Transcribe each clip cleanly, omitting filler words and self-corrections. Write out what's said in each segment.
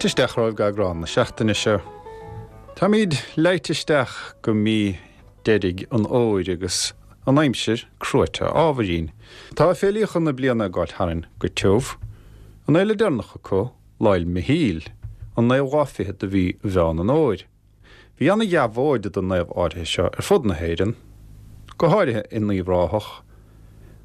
Fáilte isteach romhaibh go eagrán na seachtaine seo. Táimíd leighte isteach go mí deiridh an fhómhair agus an aimsir cruaite ábhairín. Tá féilíocha na bliana ag gabháil tharainn go tiubh. An fhéile deireanach acu, Lá 'le Michíl, an naoú lá fichead de mhí Mheán an Fhómhair. Bhí ana-dheabhóid don naomh áirithe seo ar fud na hÉireann, go háirithe in Uíbh Ráthach,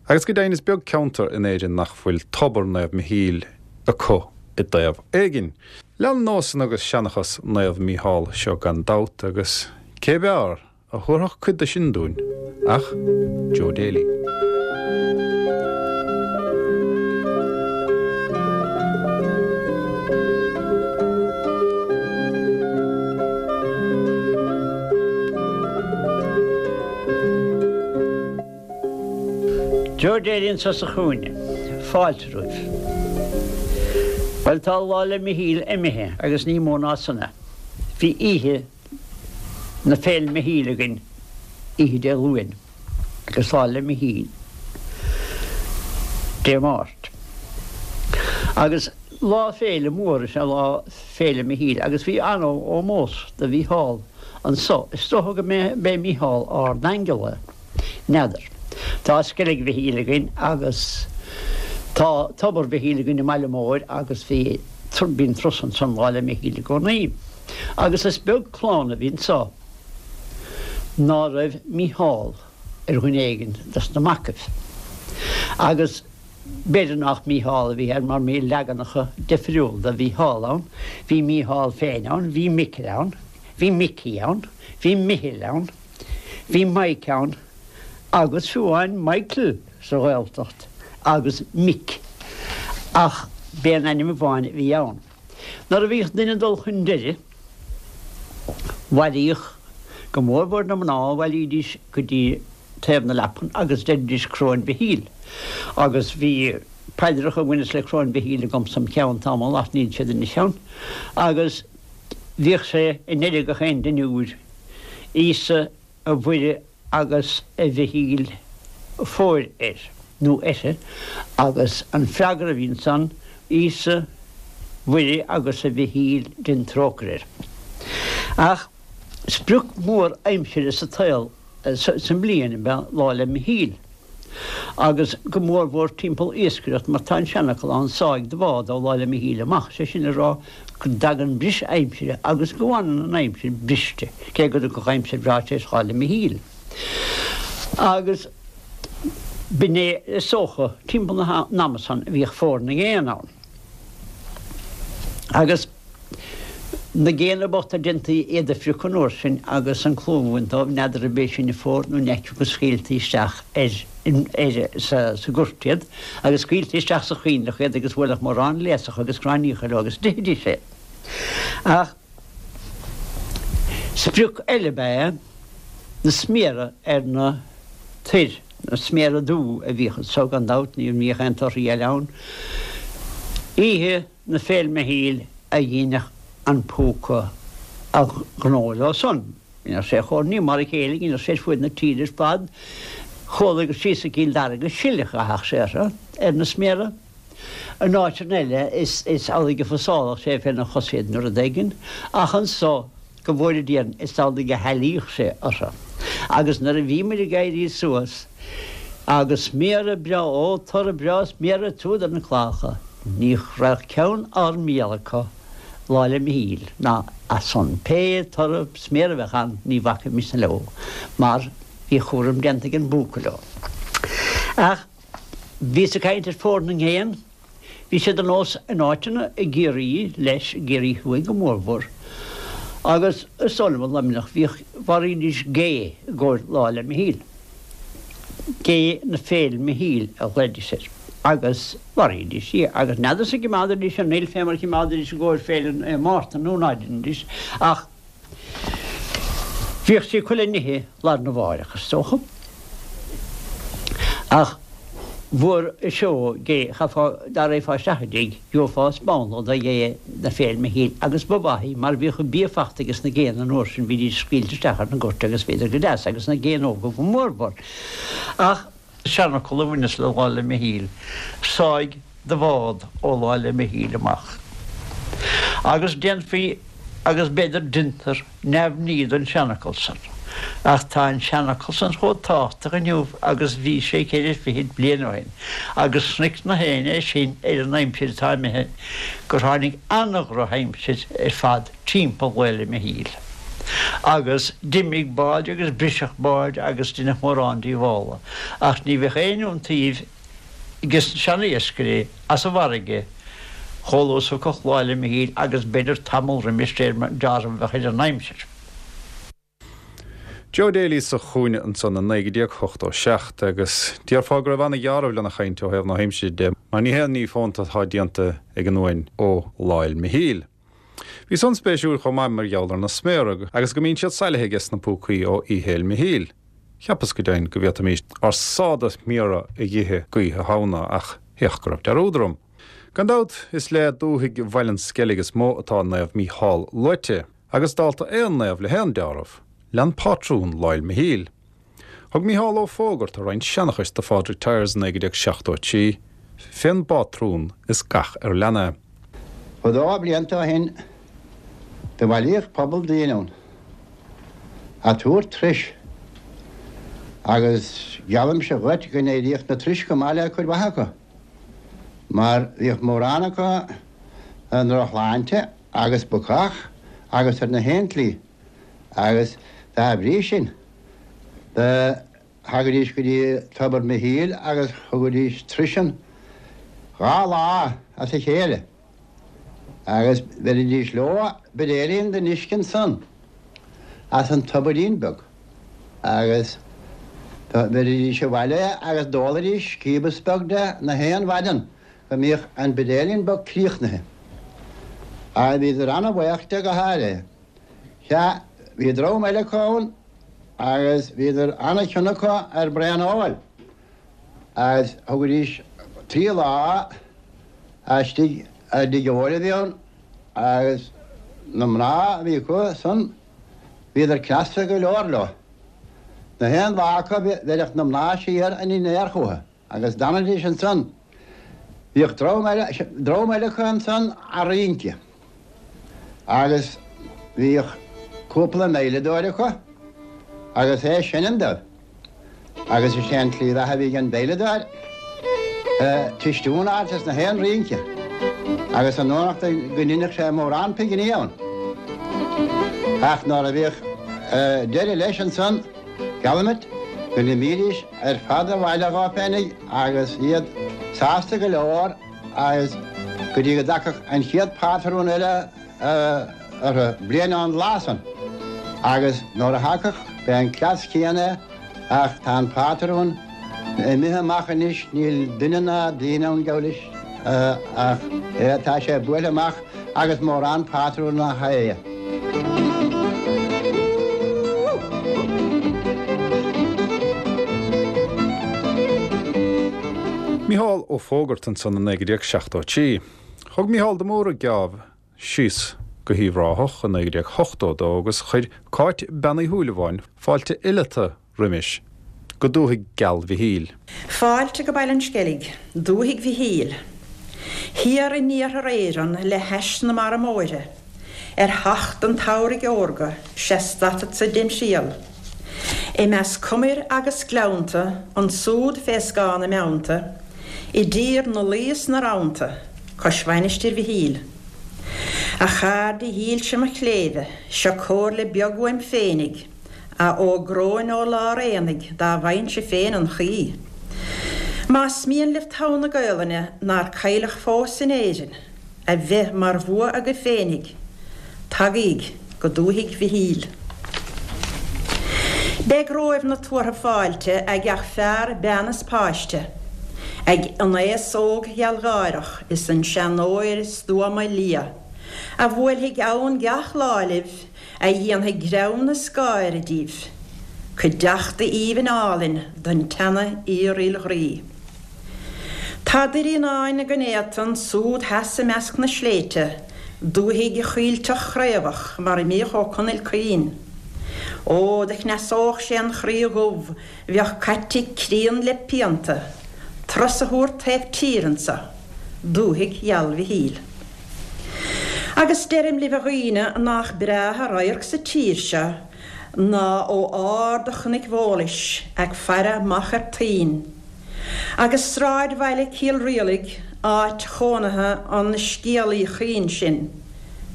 agus go deimhin is beag ceantar in Éirinn nach bhfuil tobar Naomh Michíl acu i dtaobh éigin. Leanann nósanna agus seanchas Naomh Mícheál seo gan dabht agus cé b'fhearr a thabharfadh cuid de sin dúinn ach Joe Daly. Joe Daly anseo sa chúinne. Fáilte romhaibh. Bhuel, tá Lá 'le Michíl imithe agus ní mó ná san é. Bhí oíche na Féile Michíl againn oíche Dé Luain agus Lá 'le Michíl Dé Máirt. Agus lá féile mór is ea Lá Féile Michíl agus bhí an-ómós do Mhícheál anso. Is dócha go mb'é Mícheál ard-aingeal é. N'fheadar. Tá Sceilg Mhichíl againn agus tá Tobar Mhichíl againn i mBaile Móir agus bhí, bíonn turas ansan Lá 'le Michíl i gcónaí. Agus is beag clann a bhí anso ná raibh Mícheál ar dhuine éigin dos na macaibh. Agus b'fhéidir nách Mícheál a bhí air mar bhí leaganacha difriúla de Mhícheál ann. Bhí Mícheál féin ann, bhí Micil ann, bhí Micí ann, bhí Michil ann. Bhí Mike ann agus fiú amháin Michael sa Ghaeltacht agus Mick ach b'é an ainm amháin a bhí ann. Nuair a bhíodh duine ag dul chun deiridh, bhailíodh, go mórmhór na mná, bhailídís go dtí taobh na leapan agus deiridís Coróin Mhichíl agus bhí paidreacha a bhaineas le Coróin Mhichíl agamsa im cheann tamall ach níl siad anois ann agus Bhíodh sé i ndeireadh gach aon dinniúir, Íosa, a Mhuire agus a Mhichíl fóir air, nó uirthi, agus an freagra a bhí ansan, Íosa, Mhuire agus a Mhichíl dein trócaire air. Ach sprioc mhór aimsire sa tsaol, sa mbliain ab ea Lá 'le Michíl, agus go mórmhór timpeall iascaireacht mar tá an seanfhocal ann, sáigh do bhád ó Lá 'le Michíl amach, sé sin le rá go dtagann briseadh aimsire agus go bhfanann an aimsir briste, cé go dtiocfadh aimsir bhreá tar éis Lá 'le Michíl. Agus b'in é is dócha timpeall an ama san a bhíodh fómhar na ngéanna ann. Agus. Na géanna bochta déantaí iad a phriocadh an uair sin agus an clúmh a bhaint dóibh, n'fheadar ab é sin an fómhar nó an fheicfeadh go scaoiltí isteach ar, ar, sa, sa gort iad agus scaoiltí isteach sa choinnleach iad agus bhuailfeadh mórán léasacha agus gráinníocha leo agus d'ithidís é. Ach sprioc eile ab ea na sméara ar na toir, na sméara dubha a bhíodh anso gan dabht, ní bhíodh aon torthaí eile ann. Oíche. na Féil Michíl a dheineadh an púca a ghnó leo san. Dheineadh sé chomh, ní mar a chéile, dheineadh sé ar fuaid na tíre ar fad. Chuala gur síos go Cill Dara go sileach a theadh sé orthu, ar na sméara. In áiteanna eile is amhlaidh a phasálfadh sé féna chosa iad nó rud éigin, ach anso, Go bhfóire Dia orainn, is amhlaidh a shealaíodh sé orthu. Agus nuair a bhíomair ag éirí suas, agus sméara breá, ó, toradh breá sméara ag tabhairt ar na cláracha, ní raibh ceann ár mbéal acu Lá 'le Michíl, ná as san. Pé toradh sméara a bheadh ann, ní bhacfaimis leo, mar bhí a chúram déanta ag an bpúca leo. Ach bhíos ag caint ar Fómhar na nGéan. Bhí sé de nós in áiteanna i gCiarraí, leis, i gCiarraí Thuaidh go mórmhór, agus is dóigh liom i Luimneach, bhíodh, mharaídís gé i gcomhair Lá 'le Michíl. Gé na Féil Michíl a ghlaoidís air. Agus mharaídís í. Agus n'fheadarsa an gcimeádaidís an fhuil fé mar a chimeádaidís i gcomhair Féile Naomh Mártan nó ná deinidís, ach Bhíodh sí acu le n-ithe lá arna mháireach, is dócha. Ach bhfuair seó gé, chaithfeá, dá raghfá isteach i dtigh, gheofá spántla de ghé na Féil Michíl agus ba mhaith í mar bhíodh an bia fachta ages na géanna an uair sin, bhídís scaoilte isteach ar na goirt agus bhíodar go deas, agus na géanna óga go mórmhór. Ach. Seanfhocal a bhaineas le Lá 'le Michíl, sáigh do bhád ó Lá 'le Michíl amach. Agus déanfaí, agus b'fhéidir deintear, neamhní den seanfhocal san. Ach tá an seanfhocal san chomh tábhachtach inniu agus bhí sé ceithre fichid bliain ó shin, agus chonaic na héinne é sin ar an aimsir atá imithe, gur tháinig an-dhrochaimsir ar fad timpeall Lá 'le Michíl. Agus d'imigh báid agus briseadh báid agus deineadh mórán díobhála, ach ní bheadh aon iontaoibh ages na seana-iascairí as an bhfarraige chomh luath is a thiocfadh Lá 'le Michíl agus b'fhéidir tamall roimis de réir mar dealramh a bheadh ar an aimsir. Joe Daly sa chúinne ansan i 1987 agus déarfá go raibh ana-dheáramh lena chaint ó thaobh na haimsire de mar ní haon ní fónta atá déanta ag an uain ó Lá 'le Michíl. Bhí san spéisiúil chomh maith mar gheall ar na sméara agus go mbíonn siad sailithe ages na púcaí ó Oíche Fhéil Michíl. Cheapas go deimhin go bhféadfaimis ár sáith de sméara a dh'ithe d'Oíche Shamhna ach féach go raibh dearúd orm. Gan dabht is le dúthaigh Bhaile an Sceilg is mó atá Naomh Mícheál luaite, agus dálta aon naomh le haon deáramh, lean pátrún Lá 'le Michíl. Thug Mícheál Ó Fógarta roinnt seanchais do Phádraig Tyers i 1973 fén bpátrún is gach ar lean é. Fadó blianta ó shin do bhailíodh pobal daoine ann a' tabhairt turais agus geallaimse dhuit go n-éiríodh na turais go maith le cuid mhaith acu mar bhíodh mórán acu i ndroch-shláinte agus bacach agus ar na haon tslí agus dá bhrí sin do thagaidís go dtí Tobar Mhichíl agus thugaidís turais ann dha lá as a chéile agus bheiridís leo buidéilín den uisce ansan as an tobairín beag agus do bheiridís abhaile agus d'ólaidís cíobas beag de na haon mhaidean go mbíodh an buidéilín beag críochnaithe. Agus bhíodar ana-bhaoch de go háirithe. Sea, bhí dream eile acu ann agus bhíodar ana-chion acu ar braon óil agus thugaidís trí lá istigh i dtigh óil a bhí ann agus na mná a bhí acu san, bhíodar cneasta go leor leo. Na haon lá acu bheireadh na mná siar a ndinnéar chucu. Agus d'fhanaidís ansan. Bhíodh dream eile, dream eile acu ansan a' rince. Agus bhíodh cúpla veidhleadóir acu agus é ag seinm dóibh. Agus is é an tslí bheatha a bhí ag an veidhleadóir, tistiún a fháilt as na haon rince. Agus an fhanacht go ndeineadh sé mórán pinginí ann. Ach nuair a bhíodh deireadh leis ansan, Geallaim duit go n-imídís ar fad abhaile dhóibh féinig agus iad sásta go leor agus go dtí go dtagfadh an chéad phátrún eile orthu, bliain ón lá san. Agus nuair a thagadh, b'é an cleas céanna é ach tá an pátrún imithe amach anois, níl duine ná daoine ann, geall leis, ach tá sé buailthe amach agus mórán pátrún nach é. Mícheál Ó Fógarta ansan i 1973. Thug Mícheál de Mórdha geábh síos go hUíbh Ráthach i 1982 agus chuir Cáit Bean Uí Shúilleabháin fáilte fhileata roimis go dúthaigh gheal Mhichíl. Fáilte go Baile an Sceilg, dúthaigh Mhichíl. Thiar in iarthar Éireann le hais na mara móire, ar theacht an tsamhraidh órga, 'sea stadfadsa dem thriall. I measc cumair agus gleannta, ansúd fé scáth na mbeannta, i dtír na laoi is na rannta, cois Mhainistir Mhichíl. A chairde dhílse mo chléibhe, seo comhairle beag uaim féinig, A fhógróinn ó lár aonaigh dá bhfaighinnse féin an chaoi. Más mian libh togha na Gaolainne nár cailleadh fós in Éirinn a bheith mar bhua agaibh féinig, tagaíg go dúthaigh Mhichíl. Beidh romhaibh na tuartha fáilte ag gach fear, bean is páiste, ag an aos óg ghealgháireach is an seanóir stuama liath, a bhuailfidh ann gach lá libh a dhéanfaidh greann is gáire díbh, cuideachta aoibhinn álainn don teannadh fhíoruil ghroí. Tá Doirín Áin gan éata ansúd theas i measc na sléibhte, dúthaigh choillteach chraobhach mar a mbíodh Ó Conaill caoin. Ó, do chneasódh sé an chroí dhubh bheadh caite críon le pianta, turas a thabhairt taobh tíre anso, dúthaigh gheal Mhichíl. Agus deirim libh a dhaoine nach breátha radharc sa tír seo ná ó ard Chnoic Bhólais ag faire amach ar Toinn. Agus sráidbhaile Cill Rialaig, áit chónaithe an scéalaí chaoin sin,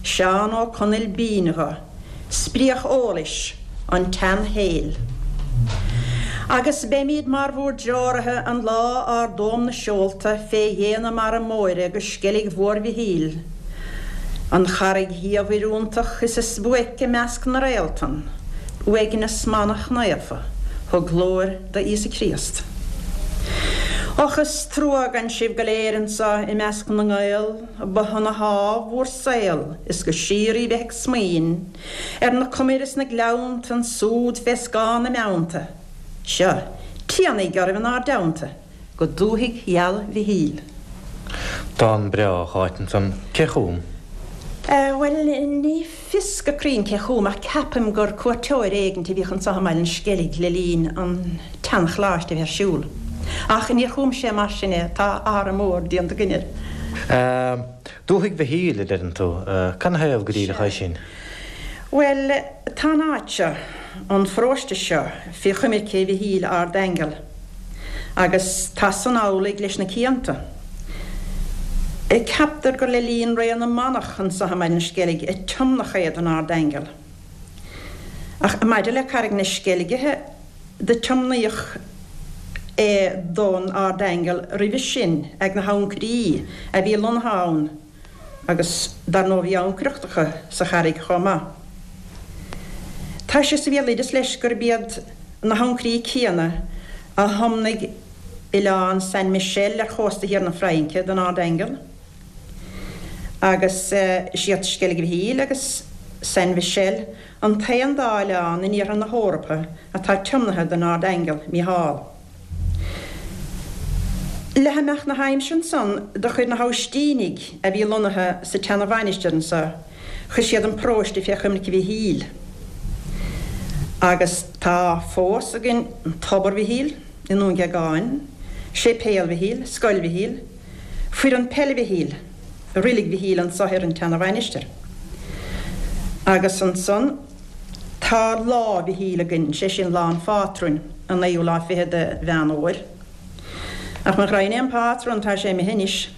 Seán Ó Conaill b'fhínn dho, spriodh eolais an tseanshaoil. Agus beimíd mar bhúr dtreoraithe an lá ardóm na seolta fé dhéin na mara móire go Sceilg Mhór Mhichíl, an charraig dhiamhair iontach is is buaic i measc na réaltan, uaigneas manach naofa, thug glóir do Íosa Críost. Och is trua gan sibh go léir anso i measc na nGael, ba shona shámh bhúr saol is go síoraí bheith ag smaoin ar na cumair is na gleannta ansúd fé scáth na mbeannta. Seo, tianaigh oraibh inár dteannta go dúthaigh gheal Mhichíl. Dán breá a Cháit ansan. Cé chum? Bhuel, ní fios go cruinn cé chum ach ceapaim gur cuairteoir éigint a bhíodh anso i mBaile an Sceilg le linn an tsean-choláiste a bheith ar siúl. Ach níor chum sé mar sin é, tá athrá mór déanta againn air. Dúthaigh Mhichíl, a deireann tú. Canathaobh go díreach é sin? Bhuel, tá an áit seo, an pharóiste seo, fé choimirce Mhichíl Ard-Aingeal. Agus tá san amhlaidh leis na cianta. Ceaptar gur le linn ré na manach anso i mBaile an Sceilg a tiomnadh é don Ard-Aingeal. Ach maidir le Carraig na Sceilge do tiomnaíodh é don Ard-Aingeal roimhe sin ag na hancairí a bhí lonnaithe ann agus dar ndóigh bhí ancaireacht acu sa charraig chomh maith. Tá sé sa bhéaloideas leis gurb iad na hancairí céanna a thiomnaigh oileán Saint Michel ar chósta thiar na Fraince don Ard-Aingeal agus is iad Sceilg Mhichíl agus Saint Michel an t-aon dá oileán in iarthar na hEorpa atá tiomnaithe don Ard-Aingeal Mícheál. Le himeacht na haimsire ansan do chuir na hAibhistínigh a bhí lonnaithe sa tseana-mhainistir anso, chuir siad an paróiste fé choimirce Mhichíl. Agus tá fós againn Tobar Mhichíl i nDún Géagáin, Séipéal Mhichíl, Scoil Mhichíl, Foireann Peile Mhichíl, Roilig Mhichíl anso ar an tseana-mhainistir. Agus ansan. Tá Lá Mhichíl againn, sé sin lá an phátrúin, an naoú lá fichead de Mheán Fhómhair. Ach mo ghraidhin é an pátrún, tá sé imithe anois.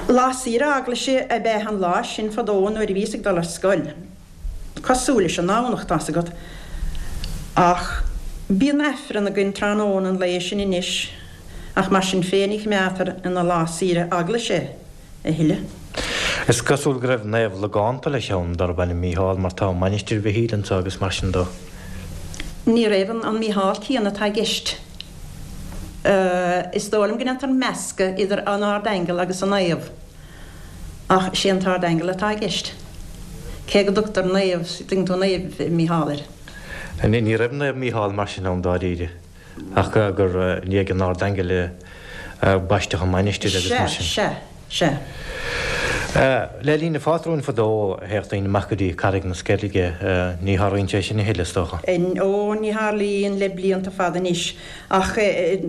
Lá saoire eaglaise ab ea an lá sin fadó nuair a bhíos ag dul ar scoil. Cosúil leis an nDomhnach, tá's agat. Ach bíonn Aifreann againn tráthnóna an lae sin anois, ach mar sin féin ní choimeádtar ina lá saoire eaglaise é. a thuilleadh. Is cosúil go raibh naomh logánta leis ann darb ainm Mícheál mar tá Mainistir Mhichíl anseo agus mar sin dó. Ní raibh an Mícheál céanna atá i gceist. Is dóigh liom go ndéantar meascadh idir an Ard-Aingeal agus an naomh, ach sé an t-Ard-Aingeal atá i gceist, cé go dtugtar naomh, tuigeann tú, Naomh Mícheál air. Ní raibh Naomh Mícheál mar sin ann dáiríre. Ach gur i ndiaidh an Ardaingil a baisteadh an mainistir agus mar sin. Sea, sea, sea. Le linn an phátrúin fadó théadh daoine amach go dtí Carraig na Sceilge. Ní tharlaíonn sé sin a thuilleadh, is dócha. Ó, ní tharlaíonn le blianta fada anois. Ach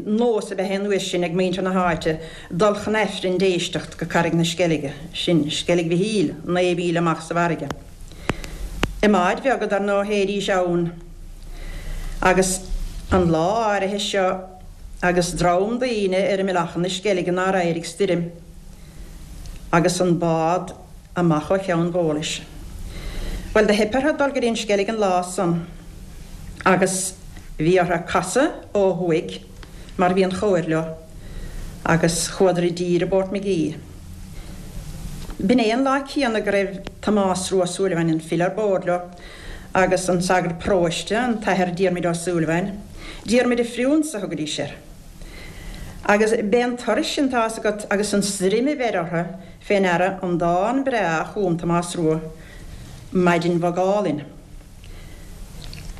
nós ab ea é an uair sin ag muintir na háite dul chun Aifrinn d'éisteacht go Carraig na Sceilge, sin Sceilg Mhichíl, 9 mhíle amach sa bhfarraige. I mbáid bheaga dar ndóigh théidís ann. Agus an lá áirithe seo agus dream daoine ar imeall Achadh na Sceilge nár éirigh stoirm agus an bád amach ó Cheann Bhólais. Bhuel do theip orthu dul go dtí an Sceilg an lá san agus bhí orthu casadh ó thuaidh mar bhí an chóir leo agus chuadar i dtír i bPort Magee. B'in é an lá céanna go raibh Tomás Rua Ó Súilleabháin, an file, ar bord leo agus an sagart paróiste, an tAthair Diarmuid Ó Súilleabháin, Diarmuid a' Phriúnsa a thugaidís air. Agus b'é an turas sin, tá's agat, agus an stoirm a bheir orthu fé ndeara an dán breá a chum Tomás Rua, Maidin Bhog Álainn.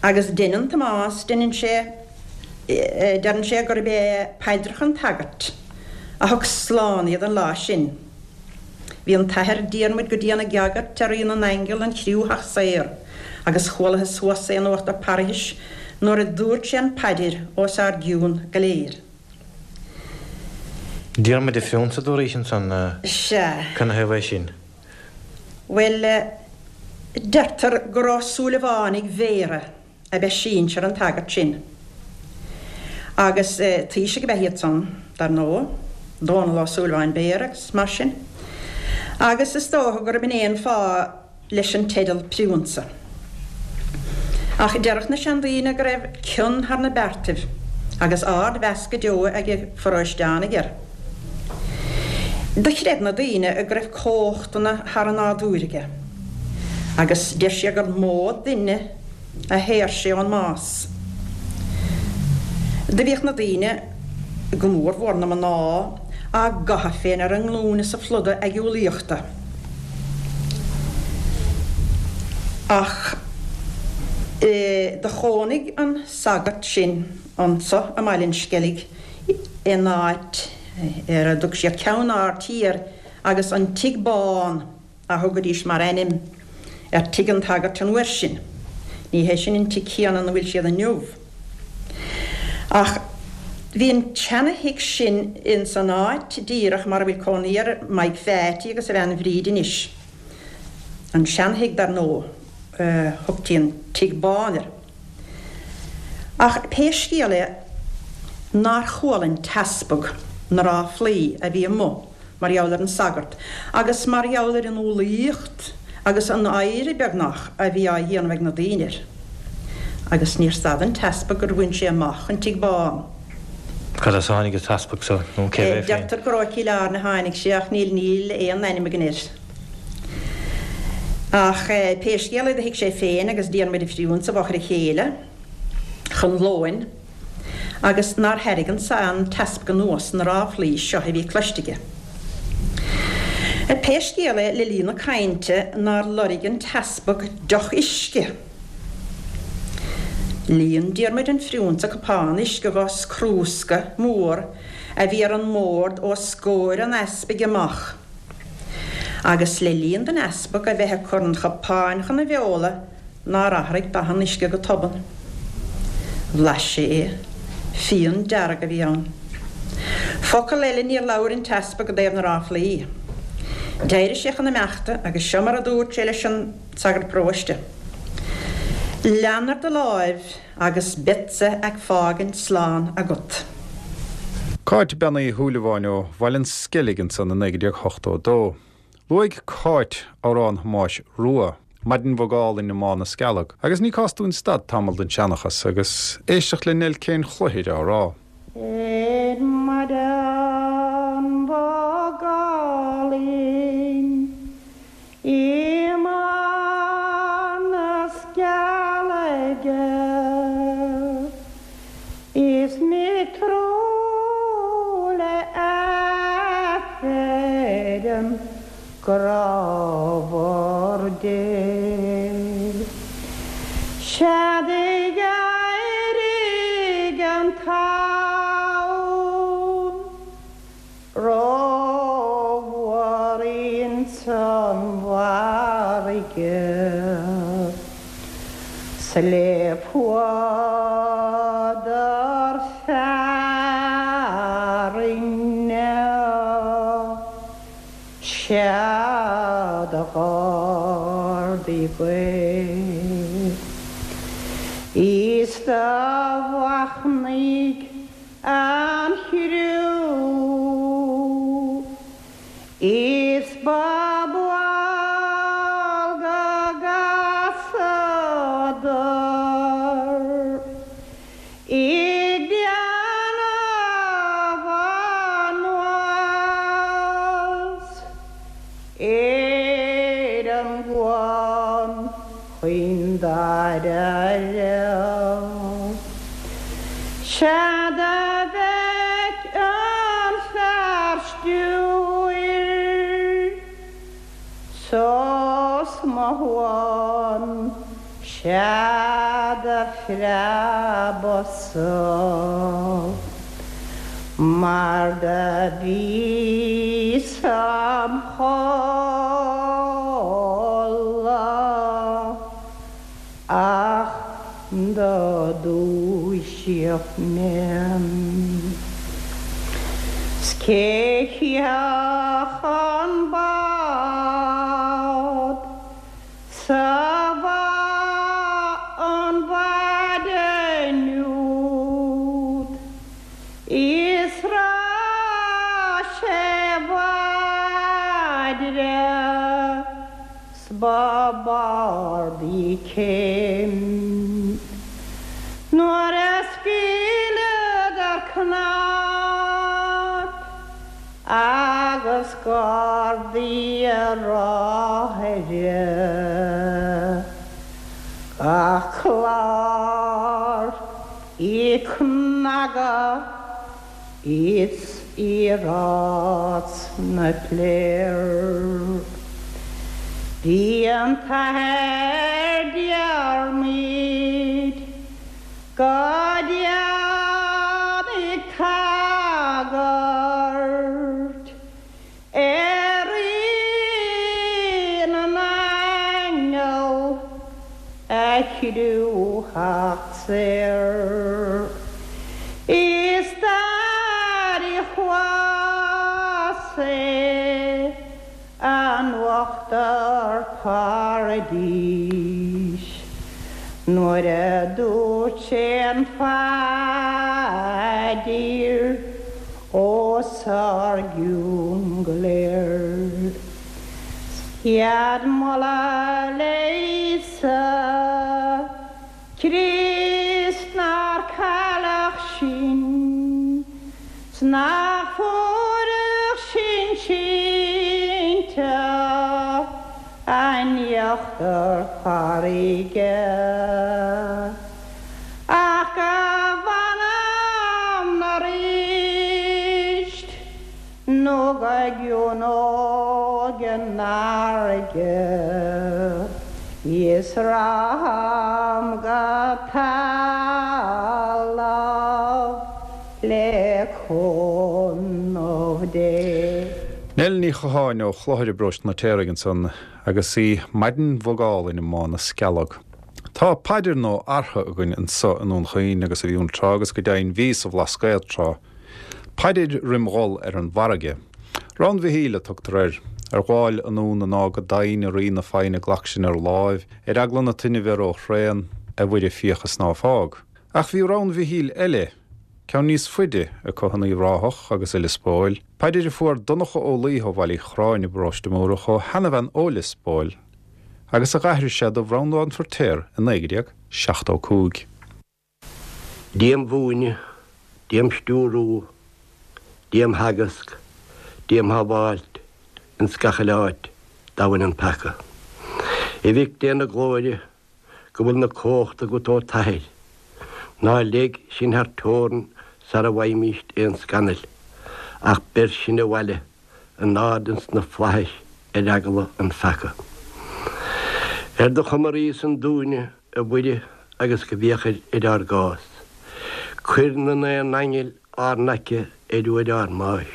Agus deineann Tomás, deineann sé, deireann sé gurb é paidreacha an tsagairt a thug slán iad an lá sin. Bhí an tAthair Diarmuid go dian ag agairt ar Rí na nAingeal an chriú theacht saor agus chualathas thuas é in uachtar parthais nuair a dúirt sé an phaidir os ár gcionn go léir. Diarmuid a' Phriúnsa a dúraís ansan, Sea. Canathaobh é sin? Bhuel, deirtear gur ó Súilleabhánaigh Bhéarra ab ea sinsear an tsagairt sin. Agus taoisigh ab ea iad san, dar ndóigh, Dónall Ó Súilleabháin Béarra agus mar sin. Agus is dócha gurb in é an fáth leis an teideal Priúnsa. Ach déarfadh na seandaoine go raibh cion thar na beartaibh agus ard-mheas go deo ag a pharóisteánaigh air. Do chreid na daoine go raibh comhachtanna thar an nádúr aige, agus deir siad gur mó duine a shaor sé ón mbás. Do bhíodh na daoine, go mór mhór na mná, á gcaitheamh féin ar a nglúine sa phluda aighiúlaíochta. Ach do chónaigh an sagart sin anso i mBaile an Sceilg in áit ar a dtug siad Ceann Ard Thiar agus an Tigh Bán a thugaidís mar ainm ar tigh an tsagairt an uair sin. Ní hé sin an tigh céanna ina bhfuil siad inniu. Ach bhí an tseana-thigh sin ins an áit díreach mar a bhfuil cónaí ar Mike Pheaití agus a bhean Bhríd anois. An seana-thigh dar ndóigh, thugtaí an Tigh Bán air. Ach pé scéal é nár chuala an t-easpag na ráflaí a bhí amuigh mar gheall ar an sagart agus mar gheall ar an umhlaíocht agus an adhradh beagnach a bhí á dhéanamh ag na daoine air. Agus níor stad an t-easpag gur bhain sé amach an Tigh Bán. Cad as a tháinig an t-easpag so, nó cérbh é féin? Deirtear gur ó Chill Airne a tháinig sé ach níl níl aon ainm againn air. Ach pé scéal é do shuigh sé féin agus Diarmuid an Phriúnsa i bhfochair a chéile chun lóin. agus nár thairg an an t-easpag anuas na ráflaí seo a bhí cloiste aige. Pé scéal é, le linn na cainte nár loirg an t-easpag deoch uisce. Líon Diarmuid an Phriúnsa cupán uisce dhá chrúsca mór a bhí ar an mbord os comhair an easpaig amach, agus le linn don easpag a bheith ag cur an chupáin chun a bheola, nár athraigh dath an uisce go tobann. Bhlais sé é. Fíon dearg a bhí ann. Focal eile níor labhair an t-easpag i dtaobh na ráflaí. D'éirigh sé chun imeachta agus seo mar a dúirt sé leis an sagart paróiste, Lean ar do láimh agus beadsa ag fágaint slán agat. Cáit Bean Uí Shúilleabháin ó Bhaile an Sceilg ansan i 1982. Luaigh Cáit amhrán Thomáis Rua, Maidin Bhog Álainn i mBá na Scealg, agus ní cás dúinn stad tamall den seanchas agus éisteacht le Nell Kane Chluichir á rá. Ar maidin bhog álainn i mBá na Scealaige Is mé ag treo le Aifreann grámhar Dé. Sea d'éirigh an tonn Rómhór ins an bhfarraige 's le fuadar fearthainne Sea d'ardaigh gaoth Is do mhachnaigh An chriú is ba bhaol go gcasadar ag déanamh anuas ar an gcuan chaoin dáiríre. Sea do bheic an fear stiúir sos mo shuan, sea do phreabas-sa mar do bhíos im chodladh. Ach do dúisíodh mé. 'S cé chífeadh an bád? céim. Nuair a scaoileadar cnap agus gardaí a ráthaire gach clár ag cnagadh is i rás na bpléar. Bhí an tAthair Diarmuid go dian ag tagairt ar Rí na nAingeal a chriú theacht saor. Is d'airigh thuas é an uachtar paradís nuair a dúirt sé an phaidir os ár gcionn go léir. Céad moladh le Íosa Críost nár cailleadh sinn 's nach fuaireadh sinn sínte in íochtar farraige ach go bhfanaimn aríst nó go gciúnóidh an fharraige is ragham go talamh le cúnamh Dé. Nell Ní Chatháin ó Chlochair i bparóiste an Fheitéaraigh ansan agus í maidin bhog álainn i mBá na Scealg. Tá paidir nó artha againn anso i nDún Chaoin agus a bhí ann tráth agus go deimhin bhí sa Bhlascaod tráth. Paidir roim dhul ar an bhfarraige. Rann Mhichíl a tugtar air. Ar ghabháil anonn anáil go domhain, a Rí na foighne glac sinn ar láimh, ar eagla na toinne bheith ró-thréan, a Mhuire féach is ná fág. Ach bhí Rann Mhichíl eile, ceann níos faide, acu in Uíbh Ráthach agus i Lios Póil, paidir a fuair Donncha Ó Laoithe ó Bhaile Uí Chorráin i bparóiste Mórdha ó sheanabhean ó Lios Póil agus a dh'aithris sé do Bhreandán Feirtéar i 1975. Dia 'm mhúineadh, Dia 'm stiúrú, Dia 'm theagasc, Dia 'm shábháilt ins gach uile áit dá bhfuil an peaca. A Mhic Dé na Glóire, go bhfuil na comhachta agat ó t'Athair, ná leig sinn thar teorainn sara bhfaighimíst aon scannal, ach beir sinn abhaile in ard ins na flaithis ar eagla an pheaca. Ar do chuma ríosan dúinne, a Mhuire, agus go bhféachair ar ár gcás. Cuir na naoi n-aingeal ár n-aice ar uair ár mbáis.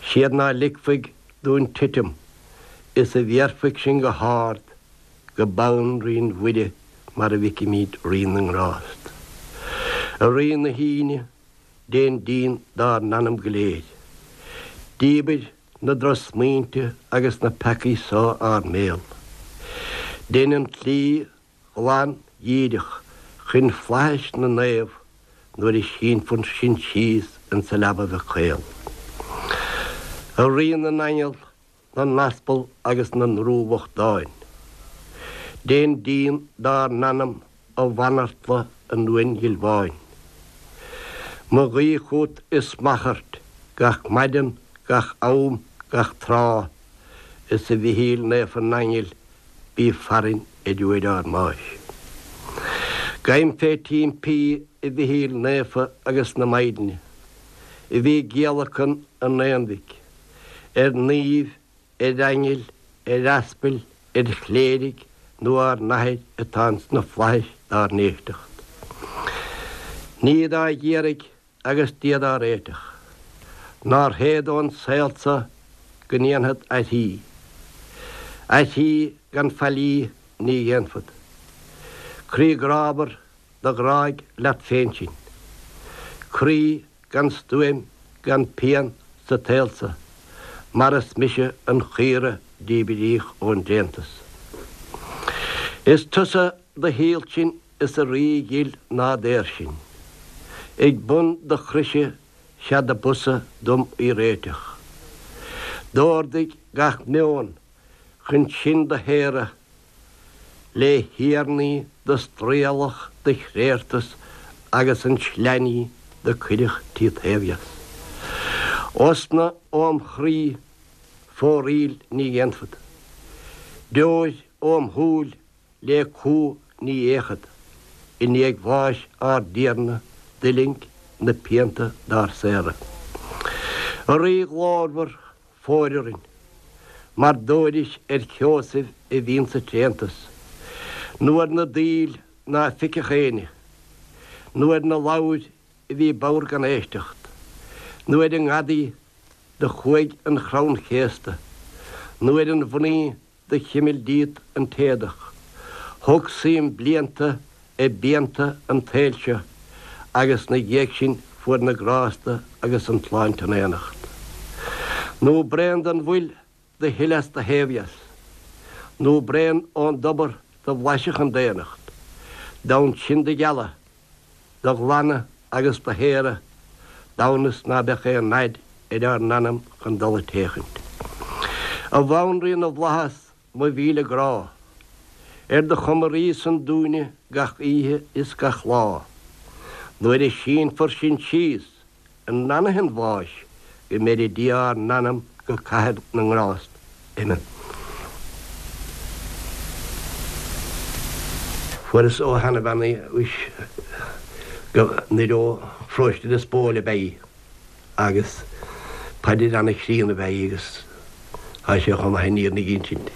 Siad ná ligfidh dúinn titim is a bhéarfaidh sinn go hard go bonn Rí Mhuire mar a bhficimíd Rí na nGrást. A Rí na hAoine, Déan díon dár n-anam go léir. Díbir na drochsmaointe agus na peacaí so ár mbéal. Dein an tslí ghlan dhíreach chun flaithis na naomh nuair a sínfear sinn síos insa leaba bheag chaol. A Rí na n-aingeal, na n-aspal agus na ndrúbhochtán. Déan díon dár n-anam a bhanartla an uain ghil bháin. Mo ghuí chút is m'achairt gach maidean, gach am, gach tráth, is a Mhichíl Naofa na nAingeal bí farainn ar uair ár mbáis. Gabhaim fé t'impí a Mhichíl Naofa agus na Maighdeana, a bhí ag giallacan an Aonmhic, ar naoimh, ar aingil, ar aspail, ar chléirigh nó ár n-athair atá ins na flaithis dár n-éisteacht. Ní dá dh'iarraidh agus Dia dá réiteach, nár théad ón saol so go ndéanfad aithrí. Aithrí gan faillí ní dhéanfad. Croí grámhar do ghráigh leat féin sinn. Croí gan stuaim gan pian sa tsaol so, mar is mise an chaora díbríodh ón dtréantas. Is tusa do shíol sinn is a Rí dhil ná daor sinn. Ag bun do chroise 'sea do b'fhusa dom í réiteach. D'órdaigh gach meon chun sinn do shaoradh. Le thiarnaí do straoileadh do chréachtas agus an tsleainní do cuireadh tíot thaobh dheas. Osna óm chroí foraíl ní dhéanfad. Deoir óm shúil le cumha ní fhéachfad, i ndiaidh bháis ár dTiarna d'fhuiling na pianta dár saoradh. A Rí ghlórmhar, fóir orainn, mar d'fhóiris ar Sheosaimh a bhíonn sa tréantas, nó ar na daoil ná feicfeadh éinne, nó ar na ladhair a bhí bodhar gan éisteacht, nó ar an ngadaí do chuaigh an chrann chéasta, nó ar an mhnaoi do chimil díot an t-éadach. Thug suim blianta i bpianta an tsaoil seo agus 'na dhiaidh sin fuair na grásta agus an tsláinte in éineacht. Nó braon den bhfuil do shil as do thaobh dheas, nó braon ón dtobar do bhlaisfeadh an daonnacht, d'fhonn sinn do ghealadh, do ghlanadh agus do shaoradh d'fhonn is ná beadh aon fhaid ar ár n-anam chun dul ag téachaint. A Bhanríon na bhFlaitheas, mo mhíle grá, ar do chuma rí san dúinne gach oíche is gach lá, nuair a sínfear sinn síos i n-anaithe an bháis go mbeire Dia ár n-anam go cathair na ngrást. Amen. Fuaireas ó sheanabhean í anois go nuair ó pharóiste Lios Póil ab ea í agus paidir ana-chríonna ab ea í agus tá sé chomh maith an fhírinne a insint.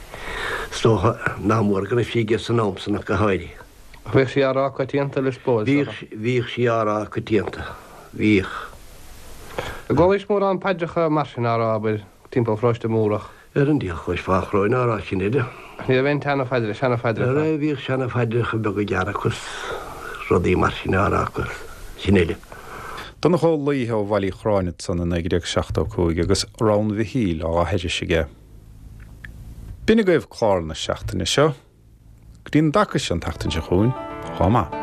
Is dócha nach mór go raibh sí aige san am san ach go háirithe. Ach bhíodh sí á rá coitianta i Lios Póil, is dócha. Bhíodh, bhíodh sí á rá coitianta. Bhíodh. An gcualaís mórán paidreacha mar sin á rá, abair, timpeall Pharóiste Múrach? Ar an diabhal chloisfeá an chróin á rá sin uile. Ach ní raibh aon tseana-phaidre, seana-phaidreacha? Ara, bhíodh seana-phaidreacha beaga gearra acu 's rudaí mar sin á rá acu, sin uile. Donncha Ó Laoithe ó Bhaile Uí Chorráin ansan i 1975 agus Rann Mhichíl á aithris aige. B'in agaibh clár na seachtaine seo. Go dtí an dtaca seo an tseachtain seo chugainn, chomh maith.